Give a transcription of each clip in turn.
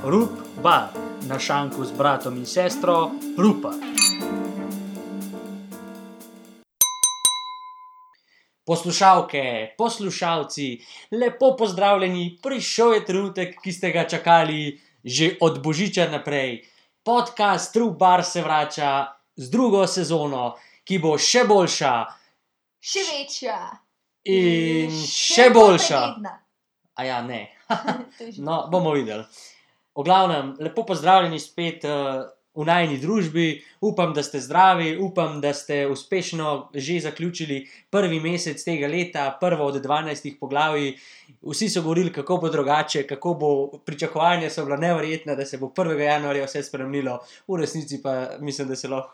Rup Bar, na šanku z bratom in sestro Rupa. Poslušalke, poslušalci, lepo pozdravljeni, prišel je trenutek, ki ste ga čakali že od Božiča naprej. Podcast Rup Bar se vrača z drugo sezono, ki bo še boljša. Še večja. In še boljša. Pregledna. A ja, ne. No, bomo videli. V glavnem, lepo pozdravljeni spet v najini družbi. Upam, da ste zdravi, upam, da ste uspešno že zaključili prvi mesec tega leta, prvo od 12 poglavij. Vsi so govorili, kako bo drugače, kako bo, pričakovanja so bila neverjetna, da se bo 1. januarja vse spremenilo. V resnici pa mislim, da se lahko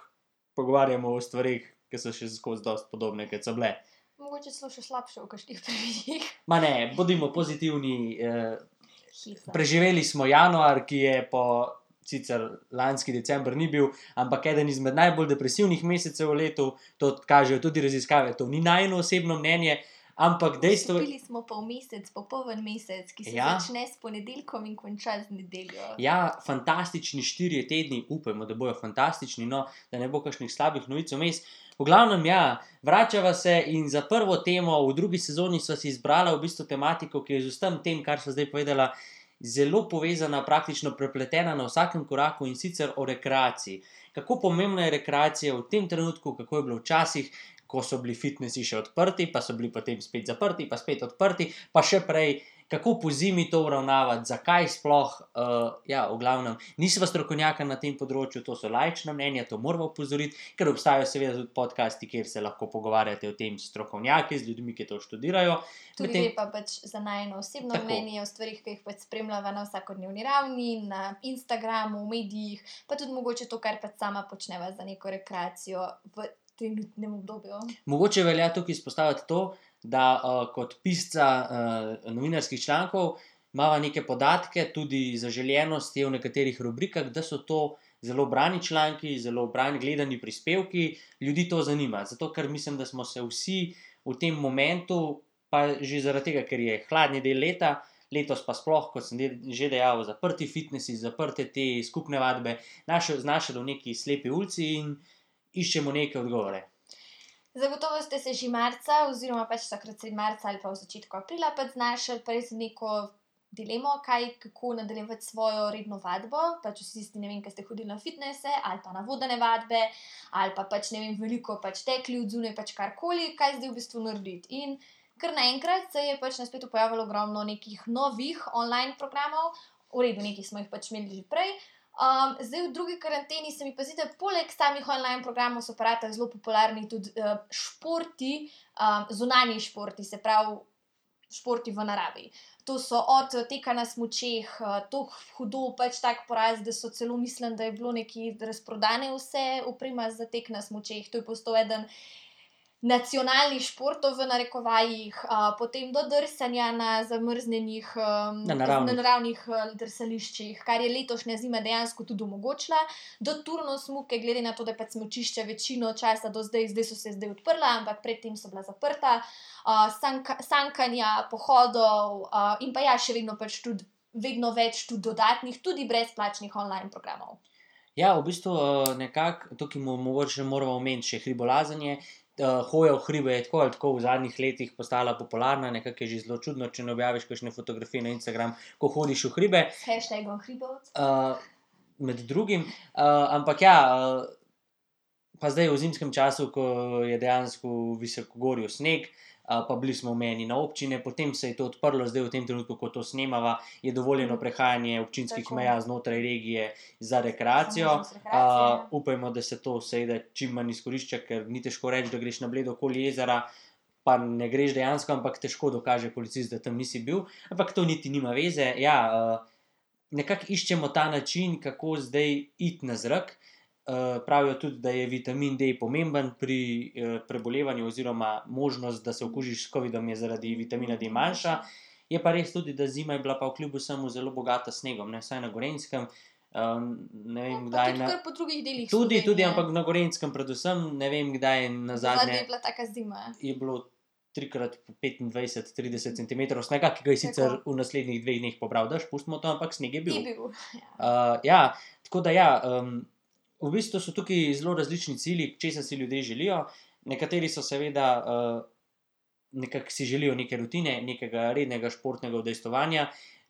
pogovarjamo o stvarih, ki so še skozi dosti podobne, kot so bile. Mogoče celo še slabše v kakšnih primerih. Ma ne, bodimo pozitivni. Preživeli smo januar, ki je po sicer lanski december ni bil, ampak eden izmed najbolj depresivnih mesecev v letu. To kažejo tudi raziskave. To ni najino osebno mnenje, ampak dejstvo... Vstopili smo pa v mesec, popoln mesec, ki se začne s ponedeljkom in konča z nedeljo. Ja, fantastični 4 tedni, upajmo, da bojo fantastični, no, da ne bo kakšnih slabih novic vmes. V glavnem, ja, vračava se in za prvo temo v drugi sezoni sva si izbrala v bistvu tematiko, ki je z vsem tem, kar sva zdaj povedala, zelo povezana, praktično prepletena na vsakem koraku, in sicer o rekreaciji. Kako pomembna je rekreacija v tem trenutku, kako je bilo včasih, ko so bili fitnesi še odprti, pa so bili potem spet zaprti, pa spet odprti, pa še prej, kako po zimi to uravnavati, zakaj sploh, v glavnem, nisva strokovnjaka na tem področju, to so laična mnenja, to moramo opozoriti, ker obstajajo seveda tudi podcasti, kjer se lahko pogovarjate o tem strokovnjaki, z ljudmi, ki to študirajo. Tudi je pa pač za najino osebno mnenje o stvarih, ki jih pač spremljava na vsakodnevni ravni, na Instagramu, v medijih, pa tudi mogoče to, kar pač sama počneva za neko rekreacijo v trenutnem obdobju. Mogoče velja tukaj izpostaviti to, da kot pisca novinarskih člankov imava neke podatke, tudi zaželjenosti v nekaterih rubrikah, da so to zelo brani članki, zelo brani gledani prispevki, ljudi to zanima. Zato, ker mislim, da smo se vsi v tem momentu, pa že zaradi tega, ker je hladni del leta, letos pa sploh, kot sem že dejal, zaprti fitnesi, zaprte te skupne vadbe, znašli v neki slepi ulici in iščemo neke odgovore. Zagotovo ste se že marca, oziroma pač takrat sredi marca ali pa v začetku aprila pač znašli res neko dilemo, kako nadaljevati svojo redno vadbo, pač vsi tisti, ne vem, ki ste hodili na fitnese ali pa na vodene vadbe, ali pa pač, ne vem, veliko pač tekli od zunaj, pač karkoli, kaj zdaj v bistvu narediti. In kar naenkrat se je pač na spletu pojavilo ogromno nekih novih online programov, v redu, nekaj smo jih pač imeli že prej. Zdaj v drugi karanteni se mi pa zdi, da poleg samih online programov so pa ratali zelo popularni tudi športi, zunanji športi, se pravi športi v naravi. To so od teka na smučeh, to hudo pač tak poraz, da so celo mislim, da je bilo nekaj razprodane vse oprema za tek na smučeh. To je postal eden nacionalnih športov v narekovajih, potem do drsanja na zamrznjenih naravnih drsališčih, kar je letošnja zima dejansko tudi omogočila, do turnosmuke, glede na to, da pač smučišča večino časa do zdaj so se odprla, ampak predtem so bila zaprta, sankanja, pohodov in pa ja, še vedno pač tudi vedno več tudi dodatnih, tudi brezplačnih online programov. Ja, v bistvu nekako, tukaj mogoče moramo omeniti še hribolazenje. Hoja v hribe je tako ali tako v zadnjih letih postala popularna, nekako je že zelo čudno, če ne objaviš kakšne fotografije na Instagram, ko hodiš v hribe. S hashtagom hribovec. Med drugim, ampak ja, pa zdaj v zimskem času, ko je dejansko v visokogorju sneg, pa bili smo omejeni na občine, potem se je to odprlo, zdaj v tem trenutku, ko to snemava, je dovoljeno prehajanje občinskih meja znotraj regije za rekreacijo. Upajmo, da se to seveda čim manj izkorišča, ker ni težko reči, da greš na Bledo okoli jezera, pa ne greš dejansko, ampak težko dokaže policist, da tam nisi bil, ampak to niti nima veze. Ja, nekako iščemo ta način, kako zdaj iti na zrak. Pravijo tudi, da je vitamin D pomemben pri prebolevanju oziroma možnost, da se okužiš s covidom je zaradi vitamina D manjša. Je pa res tudi, da zima je bila pa kljub vsemu zelo bogata s snegom, ne, vsaj na Gorenjskem. Ne vem, kdaj tudi kar po drugih delih Tudi, ampak na Gorenjskem predvsem, ne vem, kdaj nazadnje je bila taka zima. Je bilo 3x25-30 cm snega, ki ga je sicer v naslednjih 2 dneh pobral dež, pustimo to, ampak sneg je bil. Ja, tako da ja, v bistvu so tukaj zelo različni cilji, česa si ljudje želijo. Nekateri so seveda nekako si želijo neke rutine, nekega rednega športnega udejstvovanja.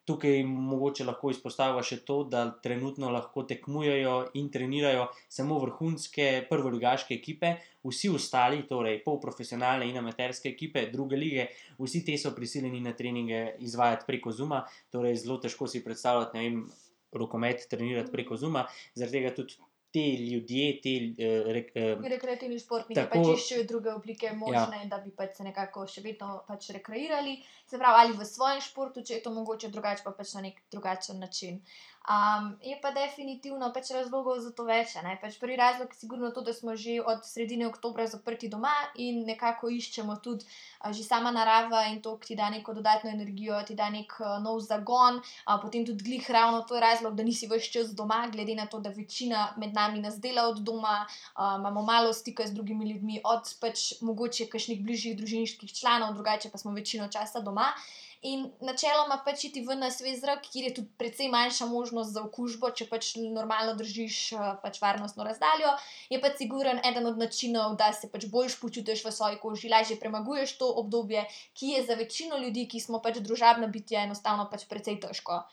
Tukaj mogoče lahko izpostavlja še to, da trenutno lahko tekmujejo in trenirajo samo vrhunske prvoligaške ekipe, vsi ostali, torej polprofesionalne in amaterske ekipe, druge lige, vsi te so prisiljeni na treninge izvajati preko Zooma, torej zelo težko si predstavljati, ne vem, rokomet trenirati preko Zooma, zaradi tega tudi te ljudje, rekreativni športniki pač iščejo druge oblike možne, da bi pač se nekako še vedno pač rekreirali, se pravi, ali v svojem športu, če je to mogoče drugače, pa pač na nek drugačen način. Je pa definitivno pač razlogov za to več, ne? Pač prvi razlog je sigurno to, da smo že od sredine oktobra zaprti doma in nekako iščemo tudi že sama narava in to, ki ti da neko dodatno energijo, ti da nek nov zagon, potem tudi glih ravno to je razlog, da nisi ves čas doma, glede na to, da večina med nami nas dela od doma, imamo malo stika z drugimi ljudmi, od pač mogoče kakšnih bližjih družinskih članov, drugače pa smo večino časa doma. In načeloma pač iti ven na svež zrak, kjer je tudi precej manjša možnost za okužbo, če pač normalno držiš pač varnostno razdaljo, je pač siguren eden od načinov, da se pač boljš počutiš v svoji koži, lažje premaguješ to obdobje, ki je za večino ljudi, ki smo pač družabna bitja, enostavno pač precej težko.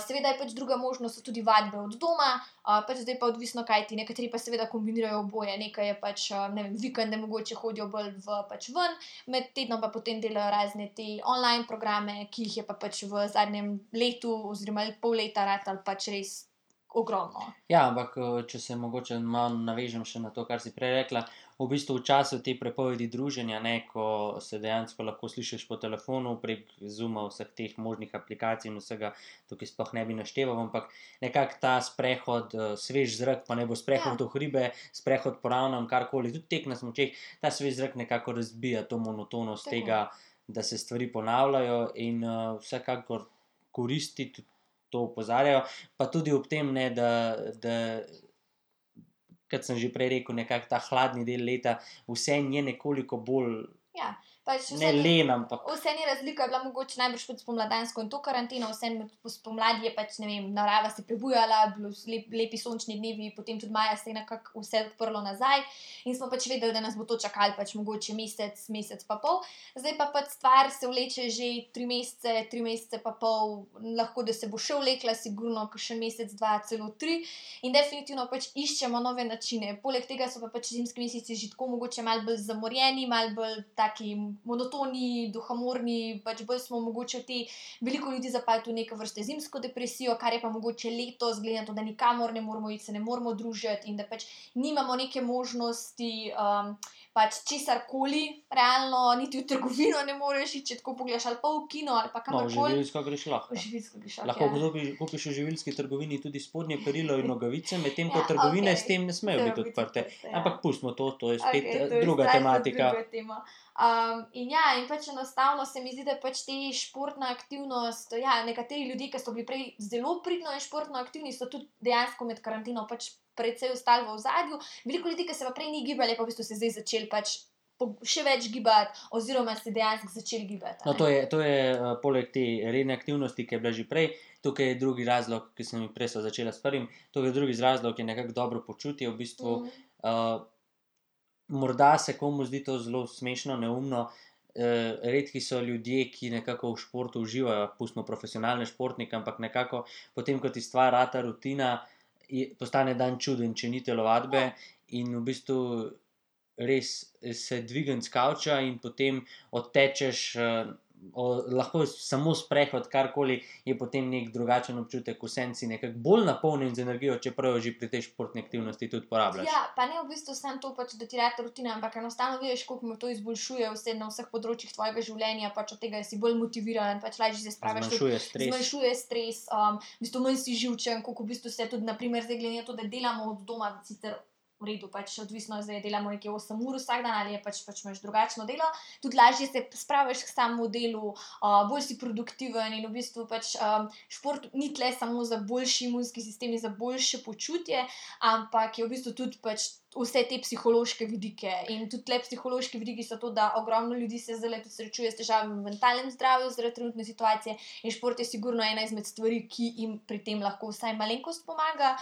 Seveda je pač druga možnost, so tudi vadbe od doma, pač zdaj pa odvisno, kaj ti, nekateri pa seveda kombinirajo oboje, nekaj je pač, ne vem, vikende mogoče hodijo bolj pač ven, med tednom pa potem delajo razne te online programe, ki jih je pa pač v zadnjem letu oziroma pol leta ratalo pač res ogromno. Ja, ampak če se mogoče malo navežem še na to, kar si prej rekla, v bistvu v času te prepovedi druženja, ne, ko se dejansko lahko slišiš po telefonu prek Zooma, vseh teh možnih aplikacij in vsega, tukaj sploh ne bi našteval, ampak nekako ta sprehod, svež zrak, pa ne bo sprehod v hribe, sprehod po ravnem, karkoli, tudi tek na smučeh, ta svež zrak nekako razbija to monotonost tega, da se stvari ponavljajo in vsekakor koristi, tudi to opozarjajo, pa tudi ob tem, ne, da kot sem že prej rekel, nekako ta hladni del leta, vseeno je nekoliko bolj, pač ne len, ampak vseeno je razlika bila mogoče najbrž pod spomladansko in to karanteno, vseeno spomladi je pač, ne vem, narava se prebujala, bilo lepi sončni dnevi, potem tudi maja se je nekako vse odprlo nazaj in smo pač vedeli, da nas bo to čakalo pač mogoče mesec pa pol. Zdaj pa pač stvar se vleče že 3 mesece pa pol, lahko da se bo še vlekla, sigurno kakšen mesec, 2, celo 3 in definitivno pač iščemo nove načine. Poleg tega so pa pač zimski meseci že tako mogoče malo bolj zamorjeni, malo bolj taki monotoni, duhamorni, pač bolj smo mogoče veliko ljudi zapali v neke vrste zimsko depresijo, kar je pa mogoče letos, glede na to, da nikamor ne moramo iti, se ne moramo družiti in da pač nimamo neke možnosti pač česarkoli, realno, niti v trgovino ne moreš iti, če tako pogledaš, ali pa v kino, ali pa kamorkoli. No, v živilsko greš lahko. V živilsko greš lahko kupiš v živilski trgovini tudi spodnje perilo in nogavice, medtem ko trgovine s tem ne smejo biti odprte. Ampak pustimo to, to je spet druga tematika. In pač enostavno se mi zdi, da pač te športna aktivnost, nekateri ljudje, ki so bili prej zelo pridno in športno aktivni, so tudi dejansko med karanteno pač precej ostali v ozadju. Veliko ljudi, ki se pa prej ni gibali, pa v bistvu se zdaj začeli pač še več gibati oziroma se dejansko začeli gibati. No, to je poleg te redne aktivnosti, ki je bila že prej, tukaj je drugi razlog, ki sem jih prej začela s prvim, tukaj je drugi razlog, je nekako dobro počutje, v bistvu morda se komu zdi to zelo smešno, neumno, redki so ljudje, ki nekako v športu uživajo, pustimo profesionalne športnike, ampak nekako potem, ko ti stvar rata rutina, postane dan čuden, če ni telovadbe in v bistvu res se dvignem s kavča in potem odtečeš, lahko samo sprehod, karkoli, je potem nek drugačen občutek, vseeno si nekako bolj napolnjen z energijo, čeprav jo že pri tej športni aktivnosti tudi porabljaš. Ja, pa ne v bistvu samo to, pač, da ti rata rutina, ampak enostavno vidiš, koliko me to izboljšuje vse na vseh področjih tvojega življenja, pač od tega si bolj motiviran, pač lažje se spraviš. Zmanjšuje stres, v bistvu manj si živčen, koliko v bistvu se tudi, na primer, zdaj glede na to, da delamo od doma, sicer v redu, pač odvisno, zdaj delamo nekje 8 ur vsak dan ali je pač imaš drugačno delo, tudi lažje se spraviš k samemu delu, bolj si produktiven in v bistvu pač šport ni tle samo za boljši imunski sistem in za boljše počutje, ampak je v bistvu tudi pač vse te psihološke vidike. In tudi tle psihološki vidiki so to, da ogromno ljudi se zdaj tudi srečuje s težavami v mentalnem zdravju zaradi trenutne situacije in šport je sigurno ena izmed stvari, ki jim pri tem lahko vsaj malenkost pomaga.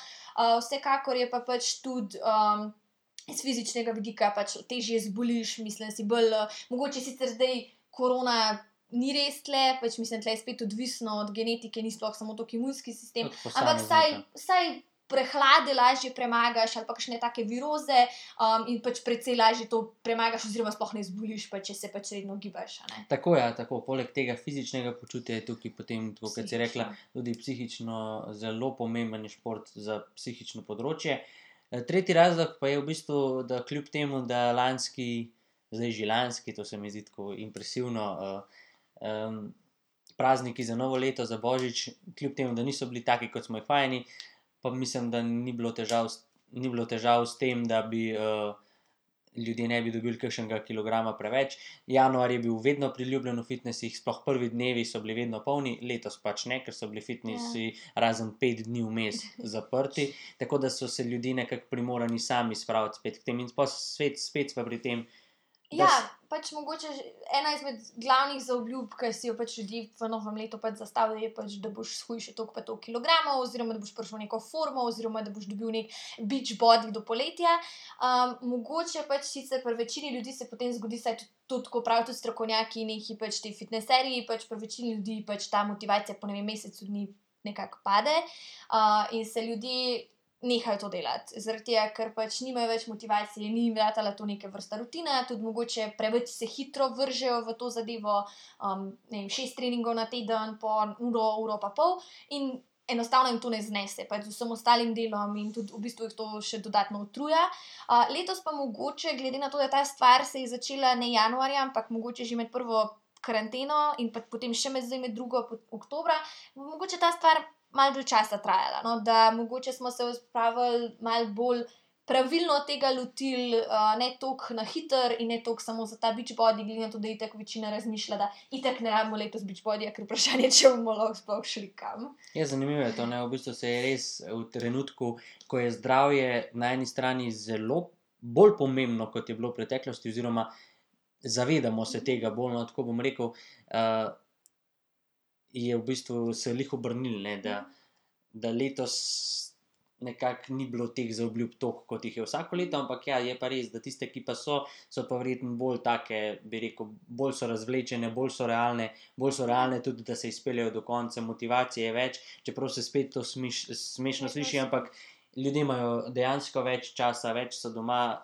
Vsekakor je pa pač tudi iz fizičnega vidika pač težje zboliš, mislim si bolj, mogoče sicer zdaj korona ni res tle, pač mislim, tle je spet odvisno od genetike, ni sploh samo to imunski sistem, ampak vsaj prehlade lažje premagaš ali pa kakšne take viroze in pač precej lažje to premagaš oziroma sploh ne zboliš, pa če se pač redno gibaš. Tako, ja, tako. Poleg tega fizičnega počutja je tukaj potem, tako kot si rekla, tudi psihično zelo pomemben šport za psihično področje. Tretji razlog pa je v bistvu, da kljub temu, da zdaj že lanski, to se mi zdi tako impresivno, prazniki za novo leto, za Božič, kljub temu, da niso bili taki, kot smo jih vajeni, pa mislim, da ni bilo težav s tem, da bi ljudje ne bi dobili kakšnega kilograma preveč. Januar je bil vedno priljubljen v fitnesih, sploh prvi dnevi so bili vedno polni, letos pač ne, ker so bili fitnesi razen 5 dni vmes zaprti, tako da so se ljudje nekako primorani sami spraviti spet k tem in spet pa pri tem. Ja, pač mogoče ena izmed glavnih zaobljub, ki si jo pač ljudje v novem letu pač zastavljajo, je pač, da boš shujšal toliko pa toliko kilogramov, oziroma da boš prišel v neko formo, oziroma da boš dobil nek beach body do poletja. Mogoče pač sicer pri večini ljudi se potem zgodi, saj to tako pravijo tudi strokovnjaki, neki pač ti fitneserji, pač pri večini ljudi pač ta motivacija po mesecu dni nekako pade in se ljudje nehajo to delati, zaradi tega, ker pač nimajo več motivacije, ni jim ratala to neke vrsta rutina, tudi mogoče preveč se hitro vržejo v to zadevo, ne vem, 6 treningov na teden, po uro pa pol in enostavno jim to ne znese, pač z vsem ostalim delom in tudi v bistvu jih to še dodatno utruja. Letos pa mogoče, glede na to, da ta stvar se je začela ne januarja, ampak mogoče že med prvo karanteno in pa potem še med drugo oktobra, mogoče ta stvar malo dlje časa trajala, no? Da mogoče smo se spravili malo bolj pravilno tega lotili, ne toliko na hiter in ne toliko samo za ta beach body, glede na to, da itak večina razmišlja, da itak ne rabimo letos beach bodyja, ker vprašanje, če bomo lahko sploh šli kam. Ja, zanimivo je to, ne, v bistvu se je res v trenutku, ko je zdravje na eni strani zelo bolj pomembno, kot je bilo v preteklosti, oziroma zavedamo se tega bolj, no, tako bom rekel, je v bistvu se lih obrnil, ne, da letos nekako ni bilo teh zaobljub toliko, kot jih je vsako leto, ampak ja, je pa res, da tiste, ki pa so pa verjetno bolj take, bi rekel, bolj so razvlečene, bolj so realne tudi, da se izpeljejo do konca, motivacije je več, čeprav se spet to smešno sliši, ampak ljudje imajo dejansko več časa, več so doma.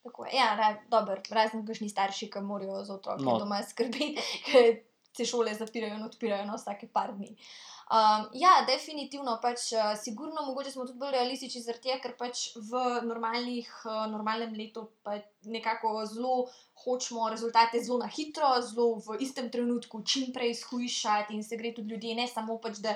Tako je, ja, dobro, razen kakšni starši, ki morajo za otroke doma skrbeti, ker se šole zapirajo in odpirajo na vsake par dni. Ja, definitivno, pač sigurno mogoče smo tudi bolj realistični zaradi tega, ker pač v normalnem letu pa nekako zelo hočemo rezultate zelo na hitro, zelo v istem trenutku čim prej shujšati in se gre tudi ljudje, ne samo pač, da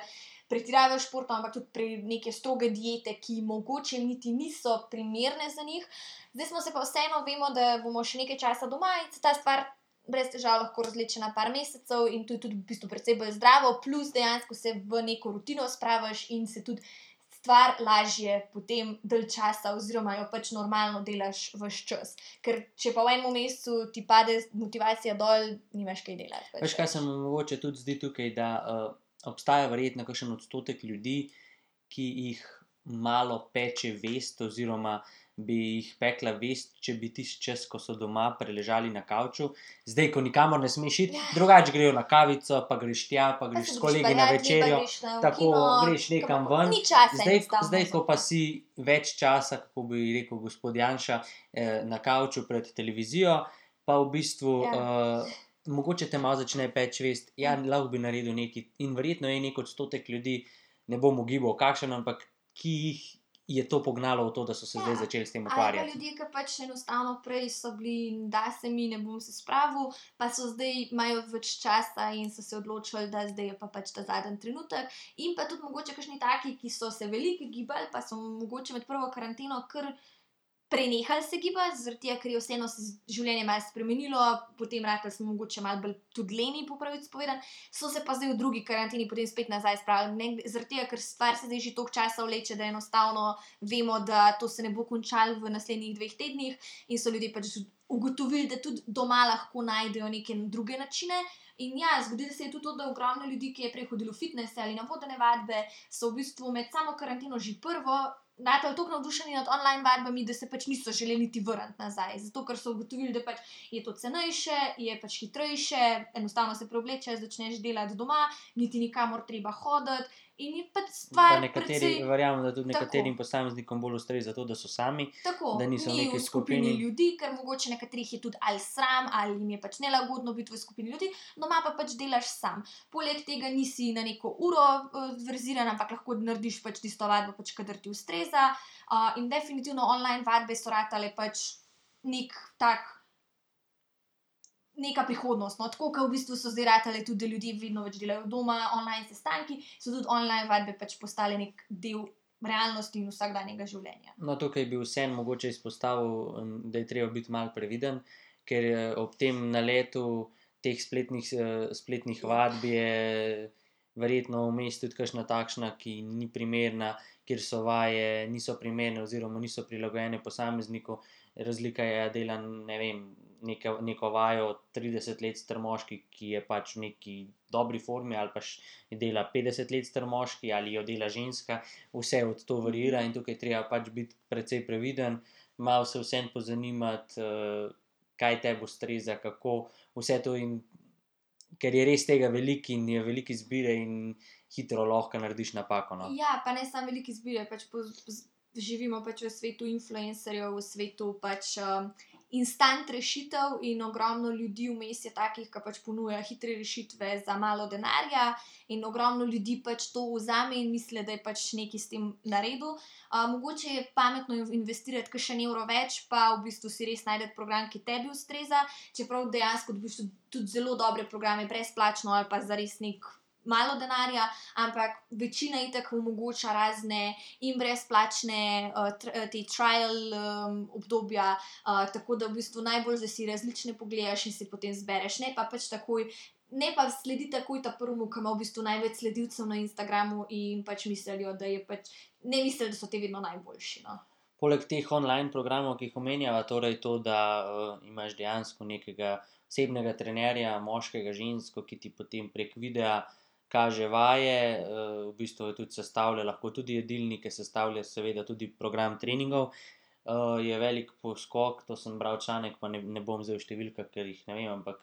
pretiravajo športom, ampak tudi pri neke stroge diete, ki mogoče niti niso primerne za njih. Zdaj smo se pa vseeno, vemo, da bomo še nekaj časa doma in se ta stvar brez težav lahko razleče na par mesecev in to je tudi v bistvu precej bolj zdravo, plus dejansko se v neko rutino spraviš in se tudi stvar lažje potem dalj časa oziroma jo pač normalno delaš ves čas. Ker če pa v enem mesecu ti pade motivacija dol, nimaš kaj delati. Veš, kaj se mi mogoče tudi zdi tukaj, da obstaja verjetno kakšen odstotek ljudi, ki jih malo peče vest oziroma bi jih pekla vest, če bi tisti čas, ko so doma preležali na kavču, zdaj, ko nikamor ne smeš iti, drugače grejo na kavico, pa greš tja, pa greš s kolegi na večerjo, tako greš nekam ven. Zdaj, ko pa si več časa, kako bi rekel gospod Janša, na kavču pred televizijo, pa v bistvu mogoče te malo začne peči vest, ja, lahko bi naredil nekaj in verjetno je nek odstotek ljudi, ne bom ugibal kakšen, ampak ki jih je to pognalo v to, da so se zdaj začeli s tem ukvarjati. Ali pa ljudje, ki pač enostavno prej so bili, da se mi ne bom se spravil, pa so zdaj imajo več časa in so se odločili, da zdaj je pa pač ta zadnji trenutek. In pa tudi mogoče kakšni taki, ki so se veliko gibali, pa so mogoče med prvo karanteno kar prenehali se gibati, zaradi tega, ker je vseeno se življenje malo spremenilo, potem ratali smo mogoče malo bolj tudi leni, po pravici povedano, so se pa zdaj v drugi karanteni potem spet nazaj spravili. Zaradi tega, ker stvar se zdaj že toliko časa vleče, da enostavno vemo, da to se ne bo končalo v naslednjih 2 tednih in so ljudje pač ugotovili, da tudi doma lahko najdejo neke druge načine. In ja, zgodilo se je tudi to, da ogromno ljudi, ki je prej hodilo v fitness ali na vodene vadbe, so v bistvu med samo karanteno že prvo natali toliko navdušeni nad online vadbami, da se pač niso želeli niti vrniti nazaj. Zato, ker so ugotovili, da pač je to cenejše, je pač hitrejše, enostavno se preoblečeš, začneš delati doma, niti nikamor treba hoditi. In je pač stvar precej... Verjamem, da tudi nekaterim posameznikom bolj ustreza to, da so sami, tako, da niso v neki skupini ljudi, ker mogoče nekaterih je tudi ali sram, ali jim je pač nelagodno biti v skupini ljudi, doma pa pač delaš sam. Poleg tega nisi na neko uro verziran, ampak lahko narediš pač tisto vadbo, pač kadar ti ustreza. In definitivno online vadbe so ratale pač neka prihodnost. No? Tako, kot v bistvu so zdaj ratale tudi, da ljudje vedno več delajo doma, online sestanki, so tudi online vadbe pač postale nek del realnosti in vsakdanjega življenja. No, tukaj bi vseeno mogoče izpostavil, da je treba biti malo previden, ker ob tem naletu teh spletnih vadb je verjetno vmes tudi kakšna takšna, ki ni primerna, kjer so vaje niso primerne oziroma niso prilagojene posamezniku. Razlika je, da dela, ne vem, neko vajo 30 let star moški, ki je pač v neki dobri formi, ali pa dela 50 let star moški, ali jo dela ženska, vse od to varira in tukaj treba pač biti precej previden, malo se vseeno pozanimati, kaj tebi ustreza, kako vse to, in ker je res tega veliko in je veliko izbire in hitro lahko narediš napako. No. Ja, pa ne samo veliko izbire, pač živimo pač v svetu influencerjev, v svetu pač instant rešitev in ogromno ljudi vmes je takih, ki pač ponuja hitre rešitve za malo denarja in ogromno ljudi pač to vzame in misli, da je pač nekaj s tem naredil. Mogoče je pametno investirati kakšen evro več, pa v bistvu si res najdete program, ki tebi ustreza, čeprav dejansko dobiš tudi zelo dobre programe brezplačno ali pa za res nek malo denarja, ampak večina itak omogoča razne in brezplačne te trial obdobja, tako da v bistvu najbolj, da si različne pogledaš in si potem zbereš, ne pa pač takoj, ne pa sledi takoj ta prvemu, ki ima v bistvu največ sledilcev na Instagramu in pač mislijo, da je pač, ne mislijo, da so te vedno najboljši, no. Poleg teh online programov, ki jih omenjava, torej to, da imaš dejansko nekega osebnega trenerja, moškega, žensko, ki ti potem prek videa kaže vaje, v bistvu je tudi sestavlja, lahko tudi jedilnike sestavlja, seveda tudi program treningov, je velik poskok, to sem bral članek, pa ne bom zdaj v številkah, ker jih ne vem, ampak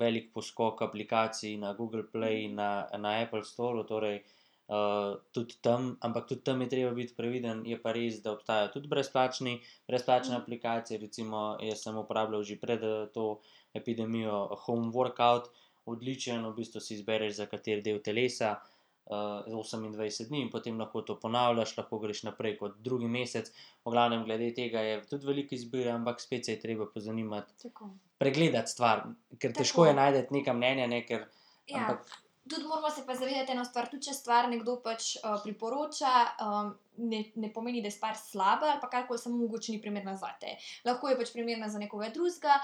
velik poskok aplikacij na Google Play, na Apple Store, torej tudi tam, ampak tudi tam je treba biti previden, je pa res, da obstajajo tudi brezplačne aplikacije, recimo jaz sem uporabljal že pred to epidemijo Home Workout, odličen, v bistvu si izbereš za kateri del telesa, 28 dni in potem lahko to ponavljaš, lahko greš naprej kot drugi mesec. V glavnem, glede tega je tudi veliko izbire, ampak spet se je treba pozanimati, pregledati stvar, ker težko je najti neka mnenja, ne, ker ampak... Tudi moramo se pa zavedati eno stvar, tudi če stvar nekdo pač priporoča, ne pomeni, da je stvar slaba ali pa karkoli, samo mogoče ni primerna zate. Lahko je pač primerna za nekoga drugega,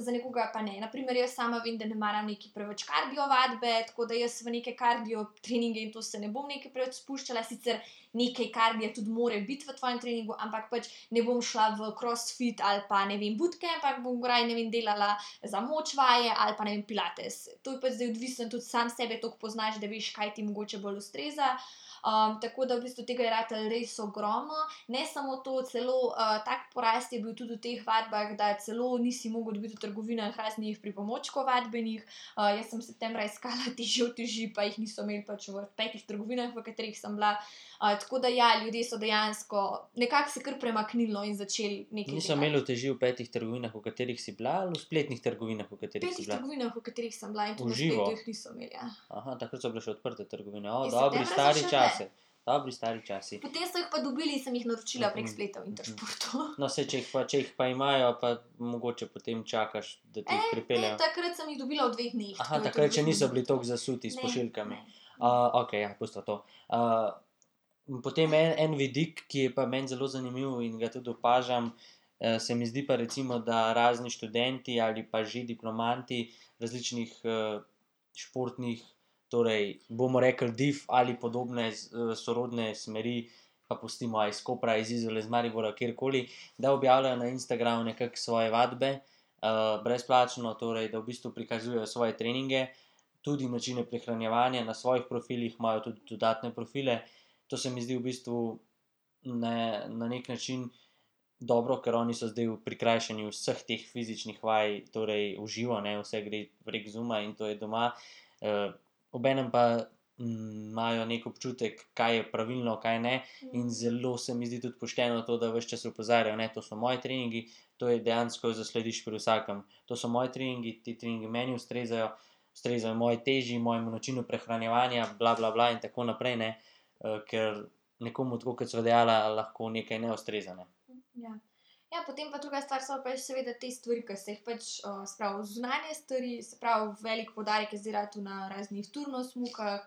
za nekoga pa ne. Naprimer, jaz sama vem, da ne maram neki preveč kardio vadbe, tako da jaz v neke kardio treninge in to se ne bom nekaj preveč spuščala, sicer nekaj kardija tudi more biti v tvojem treningu, ampak pač ne bom šla v crossfit ali pa, ne vem, bootcamp, ampak bom raje, ne vem, delala za moč vaje ali pa, ne vem, pilates. To je pač zdaj odvisno, tudi sam sebe toliko poznaš, da veš, kaj ti mogoče bolj ustreza. Tako da v bistvu tega je ratalo res ogromno. Ne samo to, celo tak porast je bil tudi v teh vadbah, da celo nisi mogel dobiti v trgovinah raznih pripomočkov vadbenih. Jaz sem septembra iskala uteži, pa jih niso imeli pač v 5 trgovinah, v katerih sem bila. Tako da ja, ljudje so dejansko nekako se kar premaknilo in začeli nekaj delati. Niso imeli uteži v 5 trgovinah, v katerih si bila, ali v spletnih trgovinah, v katerih si bila? 5 trgovinah, v katerih sem bila, in tudi na spletu jih niso imeli. Ja. Aha, takrat so bile še odprte trgovine. Dobri stari časi. Dobri stari časi. Potem so jih pa dobili in sem jih naročila prek spleta v Intersportu. No, če jih pa imajo, pa mogoče potem čakaš, da ti jih pripeljejo. Ne, takrat sem jih dobila v 2 dneh. Aha, takrat še niso bili toliko zasuti s pošiljkami. Ok, ja, pusto to. Potem en vidik, ki je pa meni zelo zanimiv in ga tudi opažam, se mi zdi pa recimo, da razni študenti ali pa že diplomanti različnih športnih, torej bomo rekli div ali podobne sorodne smeri, pa pustimo iz Kopra, iz Izola, iz Maribora, kjerkoli, da objavljajo na Instagramu nekako svoje vadbe, brezplačno, torej da v bistvu prikazujejo svoje treninge, tudi načine prehranjevanja, na svojih profilih imajo tudi dodatne profile. To se mi zdi v bistvu na nek način dobro, ker oni so zdaj v prikrajšanju vseh teh fizičnih vaj, torej v živo, ne, vse gre prek Zooma in to je doma. Obenem pa imajo nek občutek, kaj je pravilno, kaj ne, in zelo se mi zdi tudi pošteno to, da ves čas opozarjajo, ne, to so moji treningi, to je dejansko zaslediš pri vsakem. To so moji treningi, ti treningi meni ustrezajo moji teži, mojemu načinu prehranjevanja, bla, bla, bla in tako naprej, ne, ker nekomu, tako kot sva dejala, lahko nekaj ne ustreza, ne. Ja, potem pa druga stvar so pa seveda te stvari, ki se jih pač, spravi zunanje stvari, se pravi velik poudarek je zdaj ratal na raznih turnosmukah,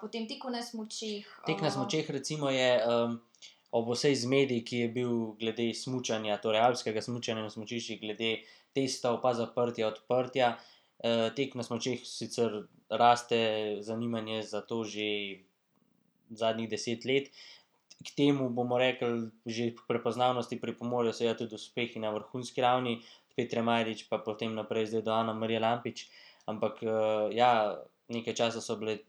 potem teku na smučeh. Tek na smučeh recimo je ob vsej zmedi, ki je bil glede smučanja, torej alpskega smučanja na smučiščih, glede testov pa zaprtja, odprtja, tek na smučeh sicer raste zanimanje za to že zadnjih 10 let. K temu bomo rekli, že k prepoznavnosti pripomorejo seveda tudi uspehi na vrhunski ravni, Petre Majdič pa potem naprej zdaj do Anamarije Lampič, ampak ja, nekaj časa so bile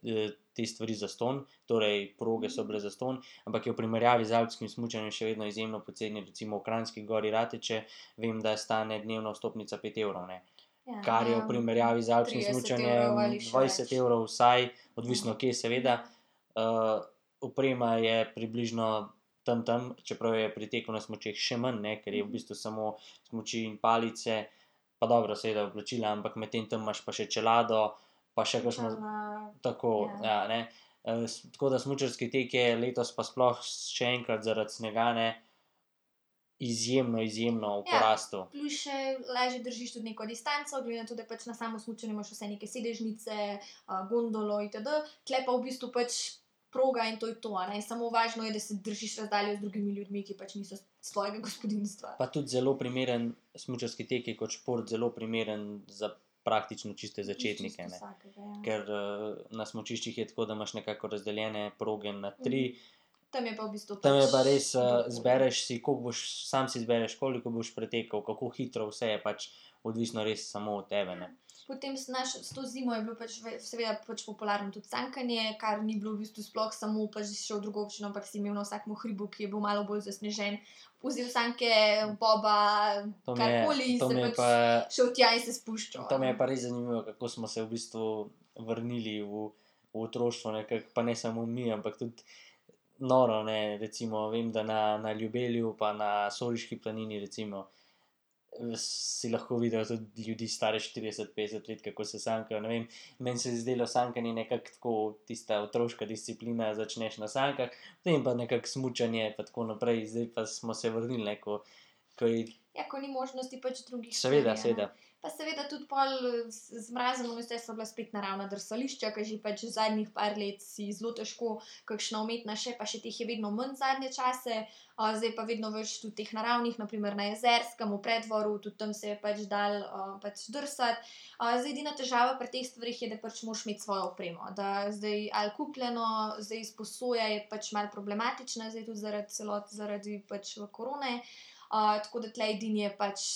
te stvari zastonj, torej proge so bile zastonj, ampak je v primerjavi z alpskim smučanjem še vedno izjemno poceni, recimo v Kranjski Gori Rateče, vem, da stane dnevna vstopnica 5 evrov, ne. Kar je v primerjavi z alpskim 30 smučanjem evrov ali še 20 več. evrov vsaj, odvisno kje seveda. Oprema je približno tam, čeprav je pri teku na smučeh še manj, ne, ker je v bistvu samo smuči in palice, pa dobro, seveda oblačila, ampak medtem tam imaš pa še čelado, pa še kakšno tako, ja, ne. Tako da smučarski tek je letos pa sploh še enkrat zaradi snega, ne, izjemno v porastu. Plus še lažje držiš tudi neko distanco, glede na to, da pač na samo smučanje imaš vse neke sedežnice, gondolo itd. Tule pa v bistvu pač proga in to je to, a ne. Samo važno je, da se držiš razdalje z drugimi ljudmi, ki pač niso s tvojega gospodinjstva. Pa tudi zelo primeren smučarski tek je kot šport zelo primeren za praktično čiste začetnike, ne. Vsakega, ja. Ker na smučiščih je tako, da imaš nekako razdeljene proge na 3. Tam je pa v bistvu Tam je pač pa res, kdorkoli. zbereš si, sam si izbereš, koliko boš pretekel, kako hitro, vse je pač odvisno res samo od tebe, ne. Potem s to zimo je bilo pač seveda pač popularno tudi sankanje, kar ni bilo v bistvu sploh samo pač si šel v drugo občino, ampak si imel na vsakem hribu, ki je bil malo bolj zasnežen, vzel sanke, boba, karkoli, to mi je se pač pa, šel tja in se spuščal. to mi je pa res zanimivo, kako smo se v bistvu vrnili v otroštvo nekako, pa ne samo mi, ampak tudi noro, ne, recimo vem, da na Ljubelju pa na Soliški planini recimo si lahko videl tudi ljudi stare 40-50 let, kako se sankajo, ne vem, meni se je zdelo sankanje nekako tako tista otroška disciplina, začneš na sankah, potem pa nekako smučanje pa tako naprej, zdaj pa smo se vrnili, ne, ko je, Ja, ko ni možnosti pač drugih seveda, stvari, a ne. seveda. Pa seveda tudi pol z mrazom vse so bila spet naravna drsališča, ke že pač zadnjih par let si zelo težko kakšna umetna še, pa še teh je vedno manj zadnje čase, zdaj pa vedno več tudi teh naravnih, na primer na Jezerskem, v Preddvoru, tudi tam se je pač dalo pač drsati. Zdaj edina težava pri teh stvareh je, da pač moraš imeti svojo opremo, da zdaj ali kupljeno, zdaj izposoja je pač malo problematična, zdaj tudi zaradi pač korone, tako da tule edini je pač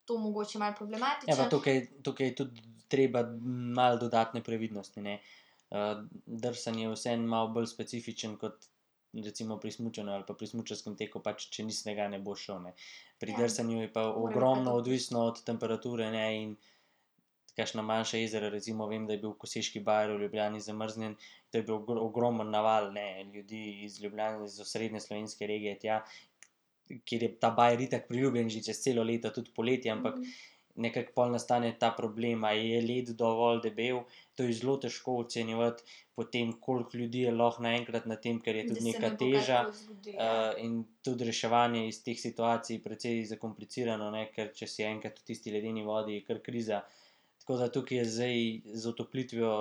to mogoče malo problematično. Ja, pa tukaj je tudi treba malo dodatne previdnosti, ne. Drsanje je vseeno malo bolj specifičen kot recimo pri smučanju ali pa pri smučarskem teku, pač če ni snega, ne boš šel, ne. Pri Ja. drsanju je pa Mora biti pa ogromno toplo. odvisno od temperature, ne, in kakšna manjša jezera, recimo vem, da je bil Koseški bajer v Ljubljani zamrznjen, to je bil ogromen naval, ne, ljudi iz Ljubljane, iz osrednje slovenske regije tja, kjer je ta bajer itak priljubljen že čez celo leto, tudi poleti, ampak nekako pol nastane ta problem, a je led dovolj debel, to je zelo težko ocenjevati, potem koliko ljudi je lahko naenkrat na tem, ker je tudi neka teža, in tudi reševanje iz teh situacij precej zakomplicirano, ne, ker če si enkrat v tisti ledeni vodi, je kar kriza. Tako da tukaj je zdaj z otoplitvijo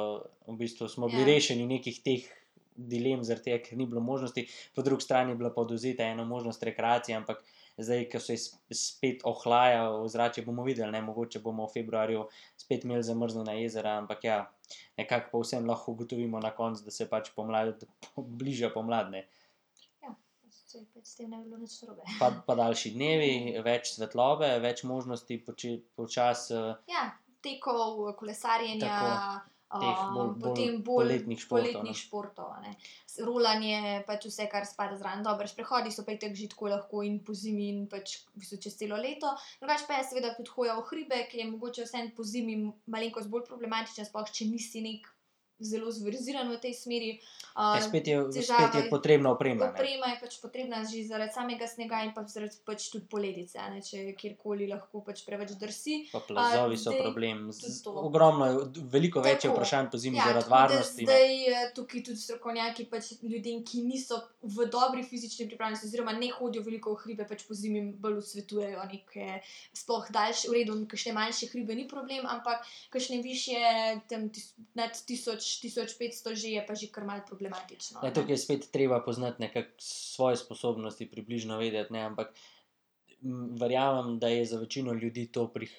v bistvu smo bili Ja. rešeni nekih teh dilem, zaradi tega, ker ni bilo možnosti, po drugi strani je bila pa odvzeta ena možnost rekreacije, ampak zdaj, ko se spet ohlaja ozračje, bomo videli, ne, mogoče bomo v februarju spet imeli zamrznjena jezera, ampak ja, nekako pa vsem lahko ugotovimo na koncu, da se pač bliža pomlad, ne. S tem ne bi bilo nič narobe. Pa daljši dnevi, več svetlobe, več možnosti počasi Ja, tekov, kolesarjenja, teh bolj poletnih športov, ne. Rolanje, pač vse, kar spada zraven. Dobro, sprehodi so pa itak že tako lahko in po zimi in pač v bistvu čez celo leto. Drugače pa je seveda tudi hoja v hribe, ki je mogoče vseeno po zimi malenkost bolj problematična, sploh če nisi nek zelo zverziran v tej smeri. Spet je potrebna oprema. Oprema je pač potrebna že zaradi samega snega in pa zaradi pač tudi poledice, ne, če kjerkoli lahko pač preveč drsi. Pa plazovi so problem. Ogromno je, veliko več je vprašanj po zimi zaradi varnosti. Zdaj tukaj tudi strokovnjaki pač ljudem, ki niso v dobri fizični pripravljenosti oziroma ne hodijo veliko v hribe, pač po zimi bolj svetujejo neke sploh daljše, v redu, kakšne manjše hribe ni problem, ampak kakšne višje, tam nad 1500 že je pa že kar malo problematično. Ja, tukaj je spet treba poznati nekako svoje sposobnosti, približno vedeti, ne, ampak verjamem, da je za večino ljudi to pri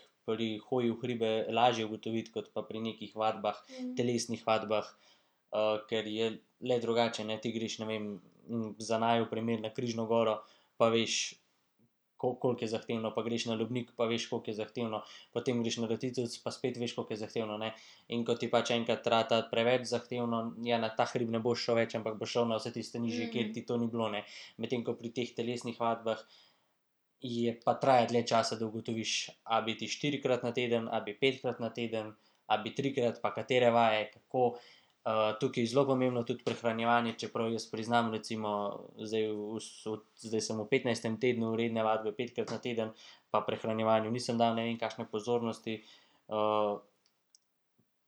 hoji v hribe lažje ugotoviti, kot pa pri nekih vadbah, telesnih vadbah, ker je le drugače, ne, ti greš, ne vem, za naju primer na Križno goro, pa veš, koliko je zahtevno, pa greš na Lubnik, pa veš, koliko je zahtevno, potem greš na Roticevec, pa spet veš, koliko je zahtevno, ne, in ko ti pač enkrat rata preveč zahtevno, ja, na ta hrib ne boš šel več, ampak boš šel na vse tiste nižje, kjer ti to ni bilo, ne, medtem ko pri teh telesnih vadbah je pa traja dlje časa, da ugotoviš, a bi ti 4-krat na teden, a bi 5-krat na teden, a bi 3-krat, pa katere vaje, kako. Tukaj je zelo pomembno tudi prehranjevanje, čeprav jaz priznam, recimo, zdaj sem v 15. tednu redne vadbe 5-krat na teden, pa prehranjevanju nisem dal ne vem kakšne pozornosti,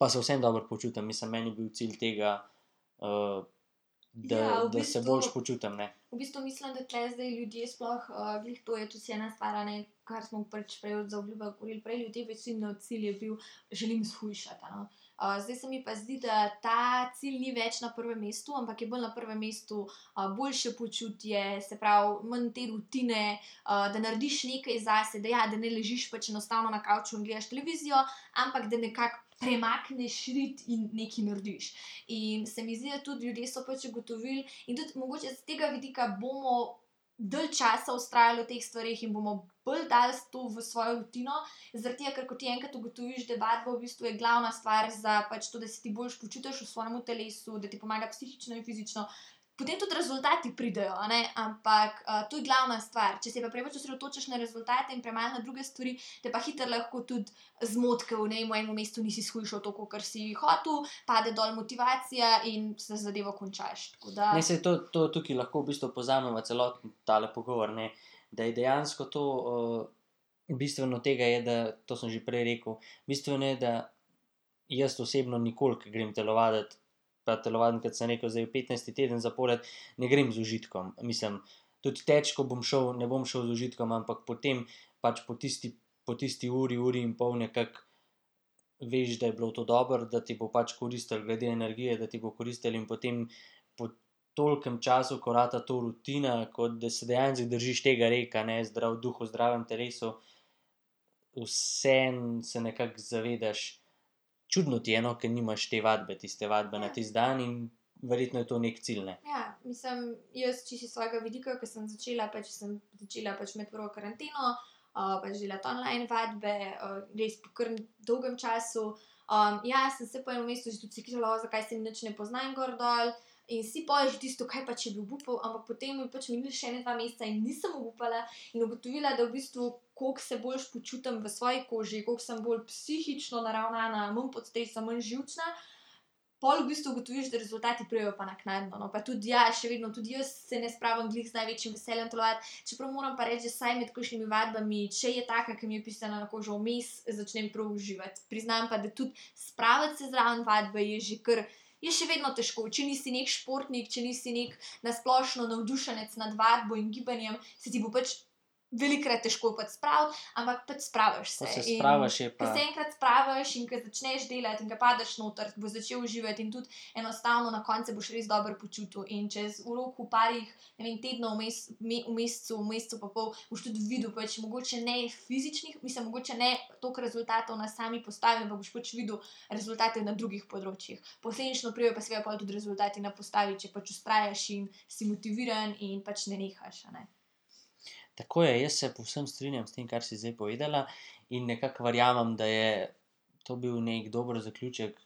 pa se vsem dobro počutim, mislim, meni je bil cilj tega, da se boljše počutim, ne. V bistvu mislim, da tukaj zdaj ljudje sploh, glih to je tudi ena stvar, ne, kar smo pač prej za obljubo govorili, prej ljudje večino cilj je bil, želim shujšati, no. Zdaj se mi pa zdi, da ta cilj ni več na prvem mestu, ampak je bolj na prvem mestu boljše počutje, se pravi, manj te rutine, da narediš nekaj zase, da ne ležiš pač enostavno na kavču in gledaš televizijo, ampak da nekako premakneš rit in nekaj narediš. In se mi zdi, da tudi ljudje so pač ugotovili in tudi mogoče z tega vidika bomo dalj časa vztrajali v teh stvareh in bomo bolj dali to v svojo rutino, zaradi tega, ker ko ti enkrat ugotoviš, da vadba v bistvu je glavna stvar za pač to, da se ti boljše počutiš v svojem telesu, da ti pomaga psihično in fizično, potem tudi rezultati pridejo, a ne, ampak to je glavna stvar. Če se pa preveč osredotočiš na rezultate in premalo na druge stvari, te pa hitro lahko tudi zmoti, ker v enem mestu nisi shujšal toliko, kar si hotel, pade dol motivacija in se zadevo končaš. Ne, saj to tukaj lahko v bistvu povzamemo celoten tale pogovor, ne, da je dejansko to, bistveno tega je, da, to sem že prej rekel, bistveno je, da jaz osebno nikoli, ko grem telovaditi, pa telovaditi, kot sem rekel, zdaj v 15. teden zapored, ne grem z užitkom, mislim, tudi teč, ko bom šel, ne bom šel z užitkom, ampak potem pač po tisti uri in pol nekako veš, da je bilo to dobro, da ti bo pač koristilo glede energije, da ti bo koristilo in potem po tolikem času, ko rata to rutina, kot da se dejansko držiš tega reka, ne, zdrav duh v zdravem telesu, vseeno se nekako zavedaš, čudno ti je, no, ker nimaš te vadbe, tiste vadbe na tisti dan in verjetno je to nek cilj, ne. Ja, mislim, jaz čisto iz svojega vidika, ko sem začela pač med prvo karanteno, pač delati online vadbe, res po kar dolgem času. Ja, sem se po enem mestu že tudi sekirala, zakaj se nič ne poznam gor dol in si pol že tisto, kaj pa če bi obupal, ampak potem je pač minili še 2 meseca in nisem obupala in ugotovila, da v bistvu koliko se boljše počutim v svoji koži, koliko sem bolj psihično naravnana, manj pod stresom, manj živčna, pol v bistvu ugotoviš, da rezultati pridejo pa naknadno, no, pa tudi ja, še vedno, tudi jaz se ne spravim glih z največjim veseljem telovaditi, čeprav moram pa reči, da saj med kakšnimi vadbami, če je taka, ki mi je pisana na kožo, vmes začnem prav uživati. Priznam pa, da tudi spraviti se zraven vadbe je že kar, je še vedno težko, če nisi nek športnik, če nisi nek na splošno navdušenec nad vadbo in gibanjem, se ti bo pač velikrat težko pač spraviti, ampak pač spraviš se. Ko se spraviš, je Ko pa se enkrat spraviš in ko začneš delati in ko padeš noter, boš začel uživati in tudi enostavno na koncu boš res dobro počutil. In čez v roku parih, ne vem, tednov, v mesecu pa pol, boš tudi videl, pač mogoče ne fizičnih, mislim, mogoče ne toliko rezultatov na sami postavi, ampak boš pač videl rezultate na drugih področjih. Posledično pridejo pa seveda pol tudi rezultati na postavi, če pač vztrajaš in si motiviran in pač ne nehaš, a ne. tako je, jaz se povsem strinjam s tem, kar si zdaj povedala in nekako verjamem, da je to bil nek dober zaključek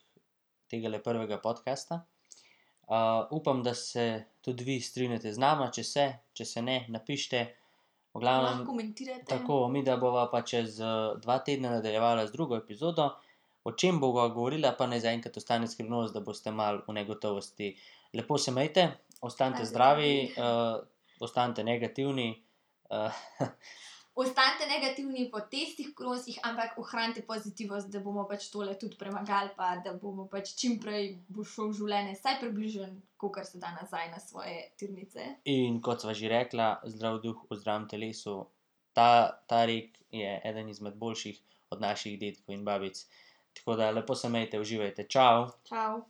tegale prvega podcasta. Upam, da se tudi vi strinjate z nama, če se ne, napište. V glavnem, Lahko komentirate. tako, mi da bova pa čez 2 tedna nadaljevala z drugo epizodo. O čem bova govorila, pa naj zaenkrat ostane skrivnost, da boste malo v negotovosti. Lepo se imejte, ostanite zdravi, ostanite negativni. Ostanite negativni po testih koronskih, ampak ohranite pozitivnost, da bomo pač tole tudi premagali, pa da bomo pač čim prej bo šel v življenje vsaj približno, kakor se da nazaj na svoje tirnice. In kot sva že rekla, zdrav duh v zdravem telesu. Ta rek je eden izmed boljših od naših dedkov in babic. Tako da lepo se imejte, uživajte. Čau! Čau!